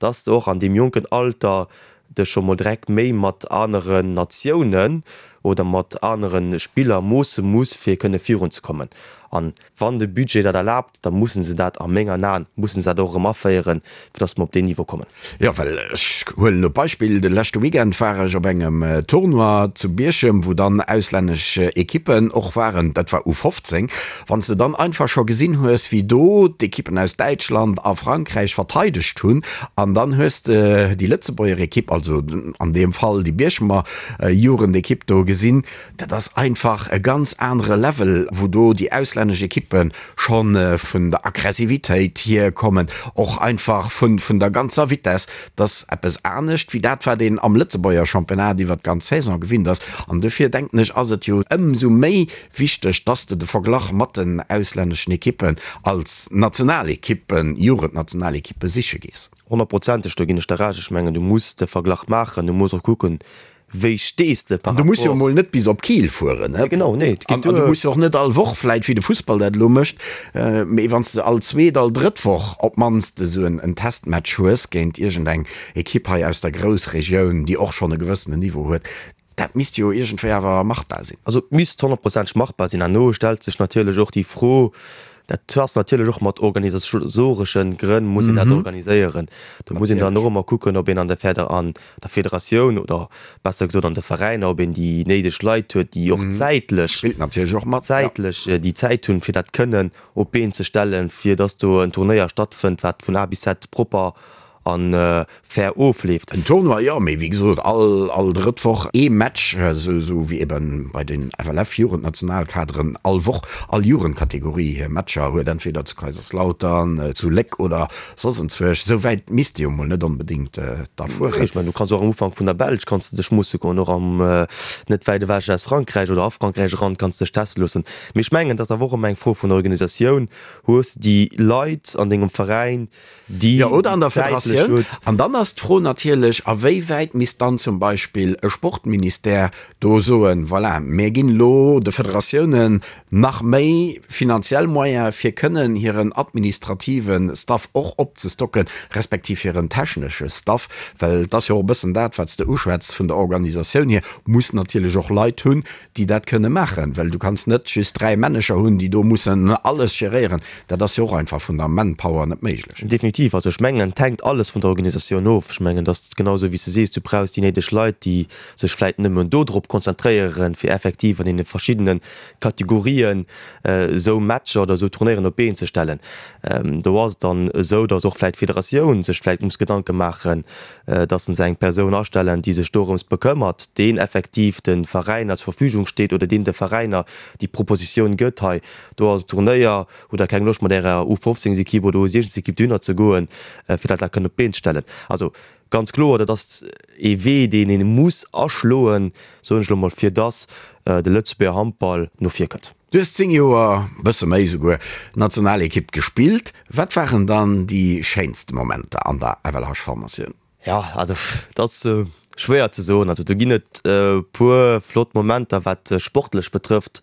dass de och an deem jonken Alter dech scho mol direkt méi mat aneren Natiounen oder mat anere Spiller moosse muss, fir kënne virunzekommen. An wann de Budget dat erlaabt, da mussen se dat a mengen Aen, mussen se dat och erëm aféieren, fir datt mer op deen Niveau kommen. Jo, well ech huelen elo d'Beispill, de leschte Weekend war ech op engem Tournoi zu Bierchem, wou dann auslännesch Ekippen och waren, dat war U15. Wann s de dann einfach scho gesinn hues, wéi do d'Ekippen aus Däitschland a Frankräich verteidegt hunn, an dann hues de déi Lëtzebuerger Ekipp, also an deem Fall déi Bierchemer Jugendekipp do gesinn, dat ass einfach e ganz anere Level, wou do déi auslännesch Ekippe scho vun der Aggressivitéit hier kommen, och einfach vun der ganzer Vitess. Dat ass eppes anescht wéi dat, wat een am Lëtzebuerger Championnat iwwer d'ganz Saison gewinnt ass. An dofir denken ech, ass et jo ëmsou méi wichteg, dass de de Verglach mat den auslänneschen Ekippen als Nationalekippen, Jugendnationalekippe siche gees. Honnertprozenteg, do ginn ech der Recht. Ech mengen, du muss de Verglach maachen, du muss och kucken, Wéi stees de par rapport. An du muss jo emol net bis op Kiel fueren, ne? Genau, nee, et geet duer. An du muss jo och net all Woch, vläit wéi de Fussball dat elo mécht, mee wann s de all zweet, all drëtt Woch op d'mannst esou en Testmatch hues géint iergendeng Ekipp hei aus der Groussregioun, déi och schonn e gewëssenen Niveau huet, dat misst jo iergendwéi awer machbar sinn. Also et misst honnertprozenteg machbar sinn. Herno stellt sech natierlech och déi Fro, dat ass natierlech och mat organisasoreschen Grënn muss een dat organiséieren. Do muss een dann och ëmmer kucken, ob een an der Feder an der Federatioun oder besser gesot an de Veräiner, ob een déi néideg Leit huet, déi och zäitlech, Spillt natierlech och mat, ja. zäitlech déi Zäit hunn, fir dat kënnen op d'Been ze stellen, fir dass do en Turnéier stattfënnt, wat vun A bis Z propper a fair ofleeft. En Tournoi, jo, mee wéi gesot, all, all drëtt Woch ee Match, esou, esou wéi ebe bei den FLF-Jugendnationalkaderen all Woch all Jugendkategorie hir Matcher huet, entweder zu Kaiserslautern, zu Léck oder Soss enzwuesch, esou wäit misst ee jo mol net onbedéngt da fueren. Ech mengen, du kanns och am Ufank vun der Belsch kanns de dech musse goen, och am net wäit ewech aus Frankräich oder a Frankräich eran kanns de dech teste loossen. Mee ech mengen, et ass awer och ëmmer eng Fro vun Organisatioun. Hues de déi Leit an dengem Veräin, déi Jo, oder an der Federatioun. An dann ass d'Fro natierlech, a wéi wäit misst dann zum Beispill e Sportministère do soen, voilà, mir ginn elo de Federatiounen nach méi finanziell Moyene fir kënnen hiren administrative Staff och opzestocken, respektiv hiren technesche Staff, well et ass jo och e bëssen dat, wat s de uschwätz vun der Organisatioun hier, muss natierlech och Leit hunn, déi dat kënne maachen, well du kanns net just 3 Männecher hunn, déi do mussen alles geréieren. Dat ass jo och einfach vun der Manpower net méiglech. Definitiv. Also ech mengen, et hänkt alles vun der Organisatioun of. Ech mengen, et ass genau esou wéi s de sees, du brauchs déi néideg Leit, déi sech vläit nëmmen dodrop konzentréieren, fir effektiv an deene verschiddene Kategorien esou Matcher oder esou Turnéieren op d'Been ze stellen. Do ass et dann esou, datt och vläit d'Federatioun sech vläit muss Gedanke maachen, datt se eng Persoun astellen, déi sech dorëms bekëmmert, deen effektiv de Veräiner zur Verfügung steet oder deen de Veräiner déi Propositioun gëtt, hei do ass e Turnéier, hutt Der keng Loscht mat Ärer U15-Ekipp oder U16-Ekipp dohinner ze goen, fir dat da kënnen op d'Been ze stellen. Also Ganz kloer, dat ass ee Wee, deen ee muss aschloen, soen ech elo mol, fir dass de Lëtzebuerger Handball no vir kënnt. Du hues 10 Joer, bësse méi esouguer, Nationalekipp gespillt. Wat waren dann déi schéinste Momenter an der FLH-Formatioun? Jo, also et ass schwéier ze soen. Also do ginn et e puer flott Momenter, wat sportlech betrëfft.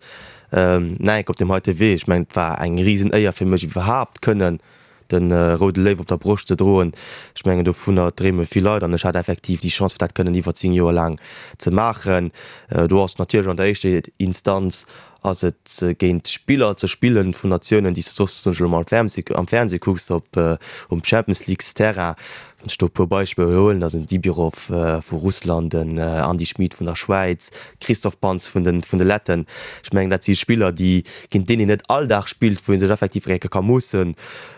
Nike op deem heite Wee, ech mengen, et war eng Risenéier fir mech iwwerhaapt kënnen de roude Léiw op der Broscht ze droen, ech mengen dovunner dreeme vill Leit an ech hat effektiv déi Chance fir dat kënnen iwwer 10 Joer laang ze maachen. Do ass natierlech an der éischter Instanz ass et géint Spiller ze spillen vun Natiounen déi s de soss elo mol am Fernseh kucks op um Champions Leagues Terrain. Wann ech do e puer Beispiller huelen, da sinn Dibirov vu Russland, den Andy Schmid vun der Schwäiz, Christoph Panz vun de vun de Letten. Ech mengen, dat si Spiller, déi géint deen een net all Dag spillt, wou ee sech effektiv eng Kéier ka moossen.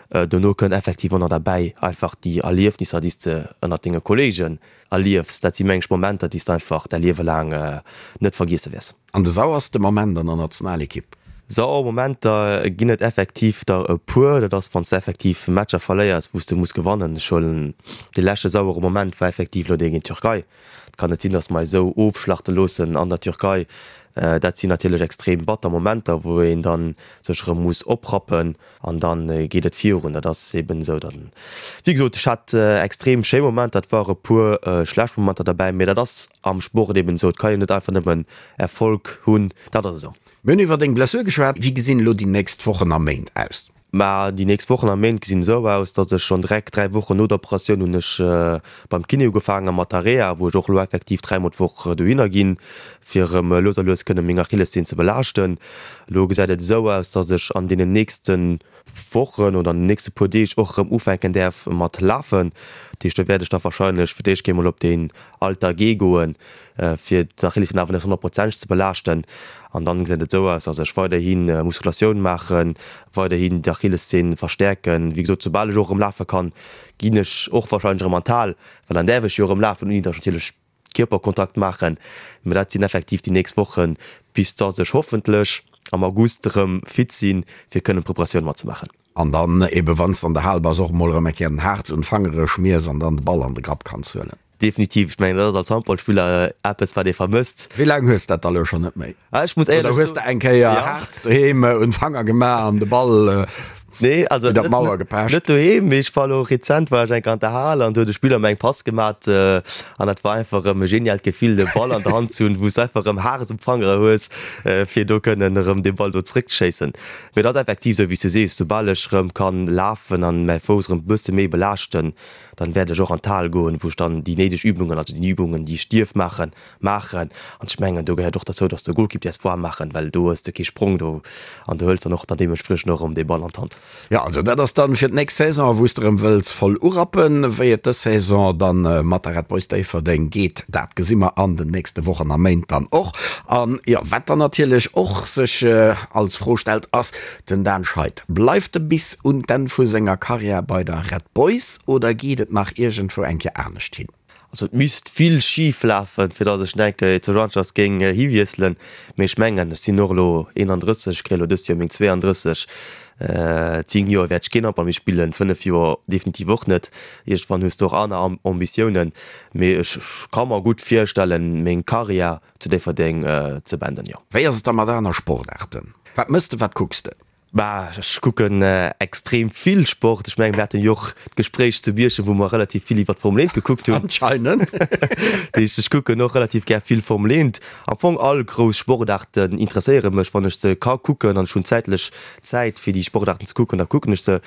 Dono kënnt effektiv och nach derbäi einfach déi Erliefnisser, déi s de ënnert denge Kolleegen erliefs. Dat si meng ech Momenter, déi s de einfach däi Liewe laang net vergiesse wäers. An de sauerste Moment an der Nationalekipp? Sauer Momenter ginn et effektiv der e puer. Dat ass, wann s de effektiv Matcher verléiers, wou s de muss gewannen. Ech huelen dee leschte sauere Moment war effektiv elo dee géint d'Türkei. Et kann net sinn, datt mer eis esou ofschlachte loossen an der Türkei. Dat sinn natierlech extrem batter Momenter, wou een da sech erëm muss oprappen an da geet et virun. Dat ass eben esou. Dann, wéi gesot, ech hat extrem schéi Momenter, et ware puer schlecht Momenter derbäi, mee dat ass am Sport eben esou. Et kann een net einfach nëmmen Erfolg hunn, dat ass esou. Mir hunn iwwer deng Blessur geschwat. Wéi gesinn elo déi nächst Wochen a Méint aus? Mä déi nächst Wochen a Méint gesinn esou aus, datt ech schonn direkt 3 Wochen no der Operatioun hunn ech beim Kiné ugefaange mat der Reha, wou ech och elo effektiv 3 mol d'Woch dohinner ginn, fir erëm lues a lues kënne meng Achillesseen ze belaaschten. Elo gesäit et esou aus, datt ech an deenen nächste Wochen oder an den nächste puer Deeg och erëm ufänken däerf mat lafen. Dat heescht, do wäert ech da warscheinlech fir d'éischt kéint mol op deen Alter G goen, fir d'Achillesseen awer net honnertprozenteg ze belaaschten. An dann gesäit et esou aus, dass ech weiderhi Muskulatioun maachen, weiderhin d'Achillesseen verstäerken. Wéi gesot, soubal ech och erëm lafe kann, ginn ech och warscheinlech erëm an d'Hal, well dann däerf ech jo erëm lafen, ouni dass ech natierlech Kierperkontakt maachen. Mä dat sinn effektiv déi nächst Wochen, bis dass ech hoffentlech am August erëm fit sinn, fir kënnen d'Preparatioun matzemaachen. An dann eben, wann s de an der Hal bass, och emol erëm eng Kéier den Harz un d'Fangere schmiers an dann de Ball an de Grapp kanns huelen. Definitiv, ech mengen dat ass als Handballspiller eppes wat ee vermësst. Wéi laang hues dat da lo schonn net méi? Ah, ech muss éierlech Oder hues de eng Kéier Harz doheem un d'Fanger gemaach an de Ball. Nee, also net, Mauer gepecht. Net doheem, mee ech war elo rezent war ech eng Kéier an der Hal an do huet e Spiller mer eng Pass gemat an dat war einfach erëm e geniaalt Gefill de Ball an der Hand ze hunn, wou s de einfach erëm Hares um Fangere hues, fir do kënnen erëm dee Ball do zréckzeschéissen. Mee et ass effektiv esou wéi s du sees, soubal ech erëm kann lafen an mäi Fouss erëm e bësse méi belaaschten, dann wäert ech och an d'Hal goen, wou ech dann déi néideg Übungen, also déi Übungen déi ech dierf maachen, maachen. An ech mengen, do gehéiert och derzou, dass de Golkipp däerfs waarm maachen, well do hues de kee Sprong do an du hëls dann och dann deementspriechend och erëm dee Ball an d'Hand. Jo, also dat ass dann fir d'nächst Saison, wou s de erëm wëlls voll urappen. Wéi et dës Saison dann mat der Red Boys Déifferdeng geet, dat gesi mer an den nächste Wochen a Méint dann och. An jo, wat dann natierlech och sech als Fro stellt, ass den Dan Scheid, Bleift e bis un d'Enn vu senger Karriär bei der Red Boys oder geet et nach iergendwou eng Kéier anescht hin? Also et misst vill schif lafen, fir datt ech denke zu Rangers géing hiwiesselen. Mee ech mengen, ech sinn och elo 31, ech kréie elo dëst Joer meng 32. 10 Joer wäert ech keen Handball méi spillen, 5 Joer definitiv och net. Iergendwann hues de och aner Ambitiounen. Mee ech ka mer gutt virstellen, meng Karriär zu Déifferdeng ze beenden, jo. Wéi ass et da mat aner Sportaarten? Wat mëss de, wat kucks de? Bah, ech kucken extrem vill Sport. Ech mengen, mir haten jo och d'Gespréich zu Bierchem, wou mer relativ vill iwwer d'Formel 1 gekuckt hunn. Anscheinend. Dat heescht, ech kucken och relativ gär vill Formel 1. Am Fong all grouss Sportaarten interesséiere mech, wann ech se ka kucken an ech hunn zäitlech Zäit, fir déi Sportaarten ze kucken, da kucken ech se.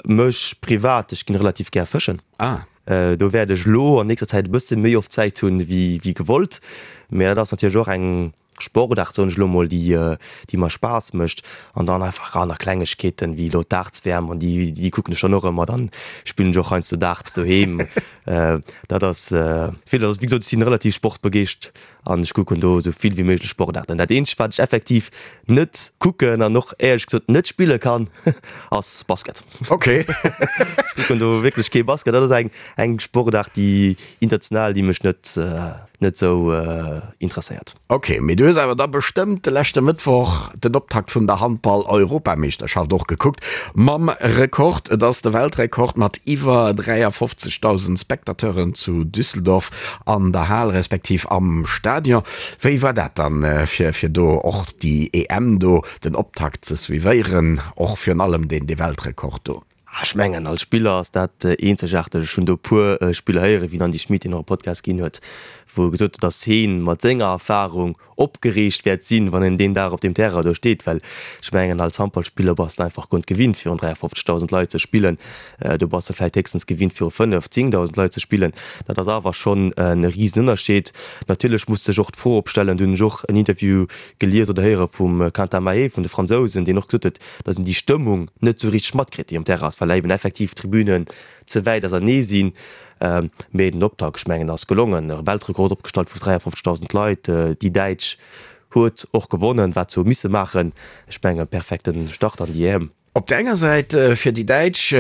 Mech privat, ech ginn relativ gär fëschen. Ah. Do wäert ech elo an nächster Zäit e bësse méi oft Zäit hunn, wéi gewollt. Mä dat ass natierlech och eng. Sportaart, soen ech elo mol, déi déi mer Spaass mécht an dann einfach aner Klengegkeeten, wéi elo d'Darts-WM an déi déi kucken ech dann och ëmmer. Dann spillen ech och heiansdo Darts doheem. Dat ass vill. Also wéi gesot, ech sinn relativ sportbegeescht an ech kucken do esou vill wéi méiglech Sportaarten. Dat eenzegt wat ech effektiv net kucken an och éierlech gesot net spille kann, ass Basket. Ok. Ech kucken do wierklech kee Basket. Dat ass eng eng Sportaart, déi international, déi mech net net sou interesséiert. Ok, mee du hues awer da bestëmmt de leschte Mëttwoch den Optakt vun der Handball-Europameeschterschaft och gekuckt, mam Rekord, et ass de Weltrekord mat iwwer 53.000 Spectateuren zu Düsseldorf an der Hal respektiv am Stadion. Wéi war dat dann, fir fir do och déi EM do, den Optakt ze suivéieren, och virun allem deen dee Weltrekord do? Ech mengen, als Spiller ass dat eenzegaarteg. Ech hunn do e puer Spiller héieren, wéi den Andy Schmit, deen och e Podcast ginn huet, wou e gesot huet, datt hee mat senger Erfarung opgereegt wäert sinn, wann en deen Dag op deem Terrain do steet. Well ech mengen, als Handballspiller bass de einfach guer net gewinnt, virun 53.000 Leit ze spillen. Do bass de vläicht héchstens gewinnt, viru 5, 10.000 Leit ze spillen. Dat ass awer schonn e Risenënnerscheed. Natierlech muss sech och d'Fro opstellen, do hunn ech och en Interview gelies oder héiere vum Quentin Mahé vun de Fransousen, deen och gesot huet, datt een déi Stëmmung net esou richteg matkritt, déi um Terrain ass, well eben effektiv d'Tribünen ze wäit ausernee sinn. Mee den Optakt, ech mengen, ass gelongen. E Weltrekord opgestallt vu 53.000 Leit. Déi Däitsch huet och gewonnen, wat se hu misse maachen. Ech mengen, perfekte Start an déi EM. Op der enger Säit fir déi Däitsch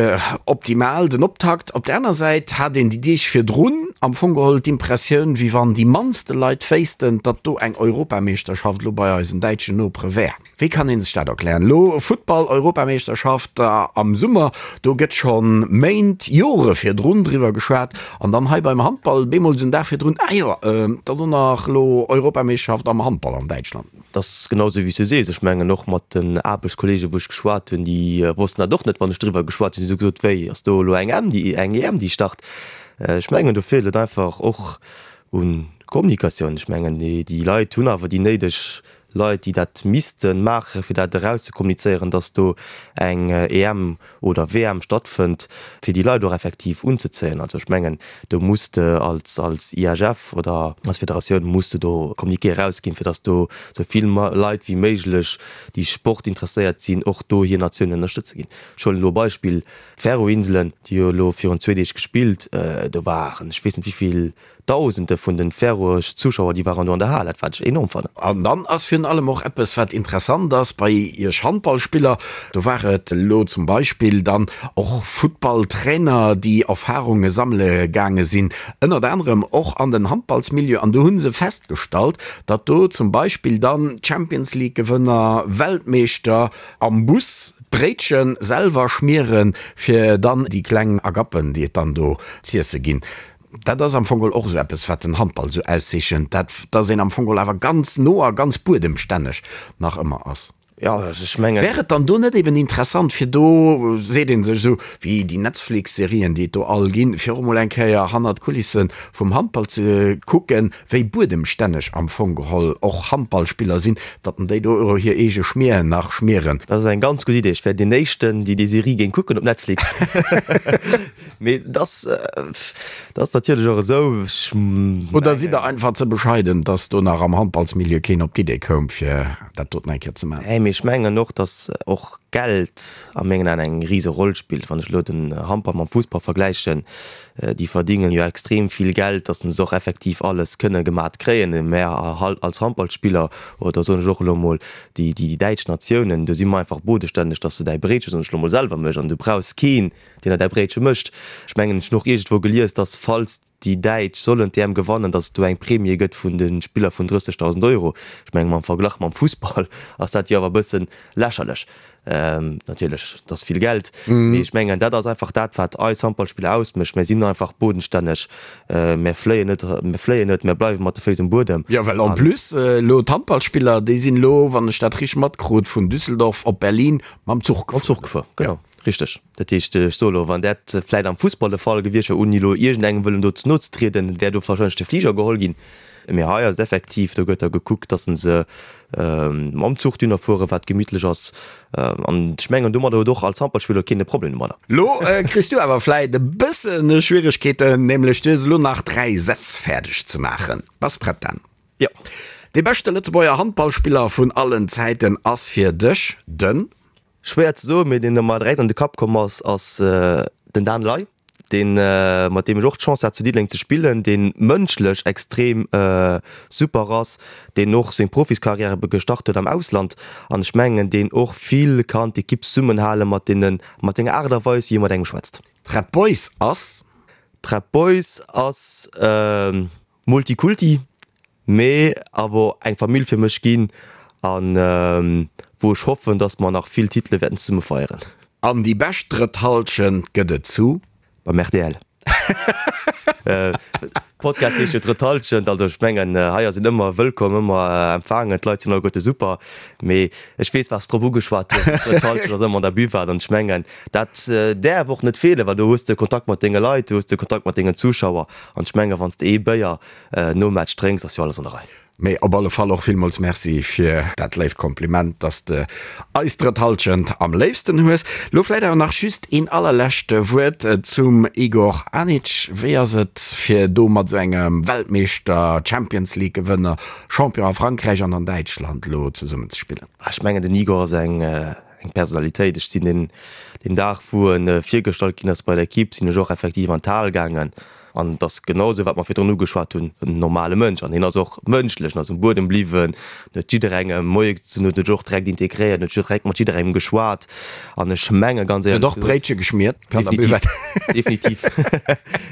optimal den Optakt, op der aner Säit hat een déi Deeg virdrun am Fong geholl d'Impressioun, wéi wann déi mannste Leit wéissten, datt do eng Europameeschterschaft elo bei eisen däitschen Nopere wär. Wéi kann ee sech dat erklären? Elo Futtball-Europameeschterschaft am Summer, do gëtt scho Méint, Jore virdrun driwwer geschwat an dann hei beim Handball bemol esou en Dag virdrun, ah jo, et ass och nach elo Europameeschterschaft am Handball an Däitschland. Et ass genau esou, wéi s du sees. Ech mengen och mat den Aarbechtskolleegen, wou ech geschwat hunn, déi wossten dat och net, wann ech driwwer geschwat hunn. Si hu gesot, Wéi, ass do elo eng em, déi, eng EM, déi start? Ech mengen, do feelt et einfach och u Kommunikatioun. Ech mengen, déi Leit hunn awer déi néideg Leit, déi dat misste maachen, fir dat erauszekommunizéieren, dass do eng EM oder WM stattfënnt, fir déi Leit och effektiv unzezéien. Also ech mengen, do muss de als als IHF oder als Federatioun muss de do Communiqué erausginn, fir dass do esou vill Leit wéi méiglech, déi sportinteresséiert sinn, och do hir Natioun ënnerstëtze ginn. Ech huelen elo e Beispill, d'Färöer-Inselen, déi hu elo virun zwee Deeg gespillt, do waren ech weess net wéi vill Dausende vun den Färöeresch Zuschauer déi waren do an der Hal, dat wat ech enorm fannen. An dann ass virun allem och eppes wat interessant ass bei iech Handballspiller, do war et elo zum Beispill dann och Futtballtrainer déi Erfahrunge sammele gaange sinn, ënnert anerem och an den Handballsmilieu, an do hu se festgestallt, datt do zum Beispill dann Champions League Gewënner, Weltmeeschter am Bus d'Bréitche selwer schmieren, fir dann déi kleng Agappen déi et dann do z'iesse ginn. Dat ass am Fong geholl och esou eppes, wat den Handball esou auszeechent, dat, dass een am Fong geholl awer ganz no a ganz buedemstänneg nach ëmmer ass. Jo, ech mengen. Wär et dann do net eben interessant, fir do, seet ee sech esou wéi déi Netflix-Serien, déi et do all ginn, fir och emol eng Kéier hannert d'Kulisse vum Handball ze kucken, wéi buedemstänneg am Fong geholl och Handballspiller sinn, datt en déi do och hir eege Schmier nach schmieren? Dat ass eng ganz gutt Idee. Ech wär deen éischten, déi déi Serie géing kucken op Netflix. Mee et ass, et ass natierlech och esou, ech mengen. Oder sidd Der einfach ze bescheiden, datt do nach am Handballsmilieu keen op d'Idee koum, fir. dat doten eng Kéier ze maachen. Nee, mee ech mengen och, datt och Geld a mengen Aen eng rise Roll spillt. Wann ech elo den Handball mam Fussball vergläichen, déi verdingen jo extrem vill Geld, datt se och effektiv alles kënne gemat kréien. Mä als Handballspiller, oder soen ech och elo emol déi däitsch Natiounen, do si mer einfach bodestänneg, datt s de däi Bréitche, soen ech elo emol, selwer méchs an du brauchs keen, deen der däi Bréitche mécht. Ech mengen, ech hunn och iergendwou gelies, datt falls déi Däitsch sollen d'EM gewannen, datt et do eng Premie gëtt vun de Spiller vun 30.000 Euro. Ech mengen, mam Verglach mam Fussball ass dat jo awer e bësse lächerlech. Natierlech, et ass vill Geld, mee ech mengen, dat ass einfach dat, wat eis Handballspiller ausmécht. Mir sinn einfach bodenstänneg, mir fléien net, mir fléien net, mir bleiwe mat de Féiss um Buedem. Jo, well en plus elo d'Handballspiller, déi sinn elo, wann ech dat richteg matkrut, vun Düsseldorf op Berlin mam Zuch gefuer. Mam Zuch gefuer, genau. Richteg. Dat heescht, ech soe lo, wann dat vläit am Fussball de Fall gewiescht wär, ouni elo iergendengem wëllen do ze no ze trieden, wär do warscheinlech de Fliger geholl ginn. Mee hei ass et effektiv, do gëtt da gekuckt, datt se mam Zuch dunner fueren, wat gemittlech ass. An ech mengen, domadder huet och als Handballspiller keen e Problem domadder. Lo kriss du awer vläit e bësse Schwieregkeeten, nämlech du hues elo nach 3 Sätz fäerdeg ze maachen. Bass prett, Dan? Jo. Dee beschte Lëtzebuerger Handballspiller vun allen Zäiten ass fir dech den? Schwéier ze soen, mee deen der mer direkt an de Kapp komm ass, ass den Dan Ley, deen, mat deem ech och d'Chance hat zu Diddeleng ze spillen, dee mënschlech extrem super ass, deen och seng Profiskarriär gestart huet am Ausland an ech mengen, deen och vill kann d'Ekipp zesummenhale mat deene, mat senger Aart a Weis, wéi e mat engem schwätzt. D'Red Boys ass? D'Red Boys ass Multikulti, mee awer eng Famill fir mech ginn an wou ech hoffen, dass mer nach vill Titele wäerten zesumme feieren. An déi bescht drëtt Halschent gëtt et zu? Beim rtl. Podcast heescht jo Drëtt Halschent, also ech mengen hei ass een ëmmer wëllkomm, ëmmer empfaangen, d'Leit sinn alleguerte super, mee ech weess wat s drop ugeschwat hues, d'Drëtt Halschent ass ëmmer an der Buvette an ech mengen dat däerf och net feelen, well do hues de Kontakt mat denge Leit, do hues de Kontakt mat dengen Zuschauer an ech mengen wann s de ee Béier Nom Match drénks ass jo alles an der Rei. Mee op alle Fall och villmools Merci fir dat léift Kompliment, dass de eis drëtt Halschent am léifsten hues. Lo vläit awer nach just een allerlescht Wuert zum Igor Anic. Wéi ass et fir do mat esou engem Weltmeeschter, Champions League Gewënner, Champion a Frankräich an an Däitschland lo zesummen ze spillen? Ech mengen den Igor ass eng eng Personalitéit. Ech sinn deen deen Dag wou en virgestallt ginn ass bei der Equipe, sinn ech och effektiv an d'Hal gaangen an et ass genau esou wat mer virdrun ugeschwat hunn, en normale Mënsch an hien ass och mënschlech, en ass um Buedem bliwwen, en huet jidderengem Moie gesot, huet sech och direkt integréiert, huet direkt mat jidderengem geschwat an ech menge ganz éierlech gesot. Huet och Bréitche geschmiert an der Buvette. Definitiv,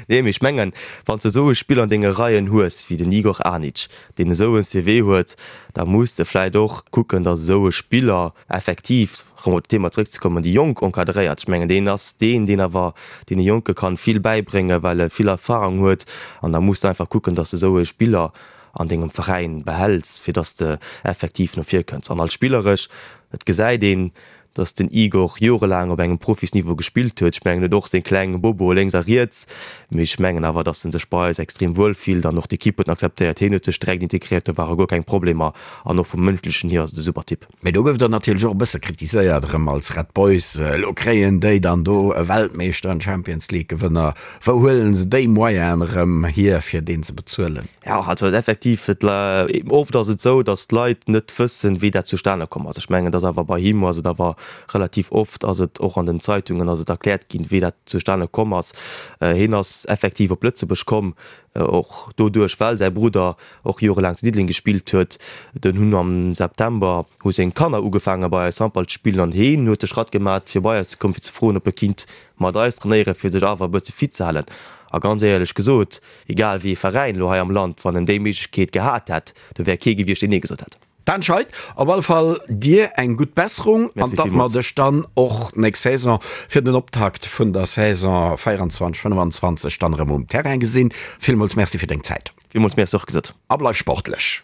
nee mee ech mengen wann s de esou e Spiller an denge Reien hues wéi den Igor Anic, deen esou en CV huet, da muss de vläit och kucken, datt esou e Spiller effektiv, erëm op d'Thema zrëckzekommen, déi Jonk encadréiert. Ech mengen, deen ass deen, deen awer deene Jonke kann vill bäibréngen, well e vill Erfahrung huet. An da muss de einfach kucken, dass de esou e Spiller an dengem Veräin behäls, fir dass de effektiv no vir kënns. An als spilleresch, et gesäit een, dass den Igor jorelaang op engem Profisniveau gespillt huet. Ech mengen, en huet och seng kleng Boboe lénks a riets, mee ech mengen awer, dass en sech bei eis extrem wuel fillt an och d'Ekipp huet en akzeptéiert. Hien huet sech direkt integréiert, do ware guer keng Problemer an och vum Mënschlechen hier ass et e super Typ. Mee do gouf der natierlech och e bësse kritiséiert erëm als Red Boys. Elo kréien déi dann do e Weltmeeschter, en Champions League Gewënner. Wou huelen se déi Moyenen erëm hier fir deen ze bezuelen? Jo, also effektiv, et oft ass et esou, datt d'Leit net wëssen, wéi dat zustane komm ass. Ech mengen, et ass awer bei him ass et awer relativ oft ass et och an den Zeitungen ass et erkläert ginn, wéi dat zustane komm ass. Hien ass effektiv op Lëtzebuerg komm, och doduerch well säi Brudder och jorelaang zu Diddeleng gespillt huet. Dunn hunn am September hu seng Kanner ugefaange bei eis Handball ze spillen an heen huet de Schratt gemat fir bei eis ze kommen fir ze froen ob e kinnt mat eis trainéieren fir sech awer e bësse fit ze halen. A ganz éierlech gesot, egal wéi ee Veräin elo hei am Land, wann en déi Méiglechkeet gehat hätt, do wär kee gewiescht deen nee gesot hätt. Dan Scheid, op alle Fall dir eng gutt Besserung an datt mer dech dann och nächst Saison fir den Optakt vun der Saison 24, 25 dann erëm um Terrain gesinn. Villmools Merci fir deng Zäit. Villmools Merci och gesot. A bleif sportlech.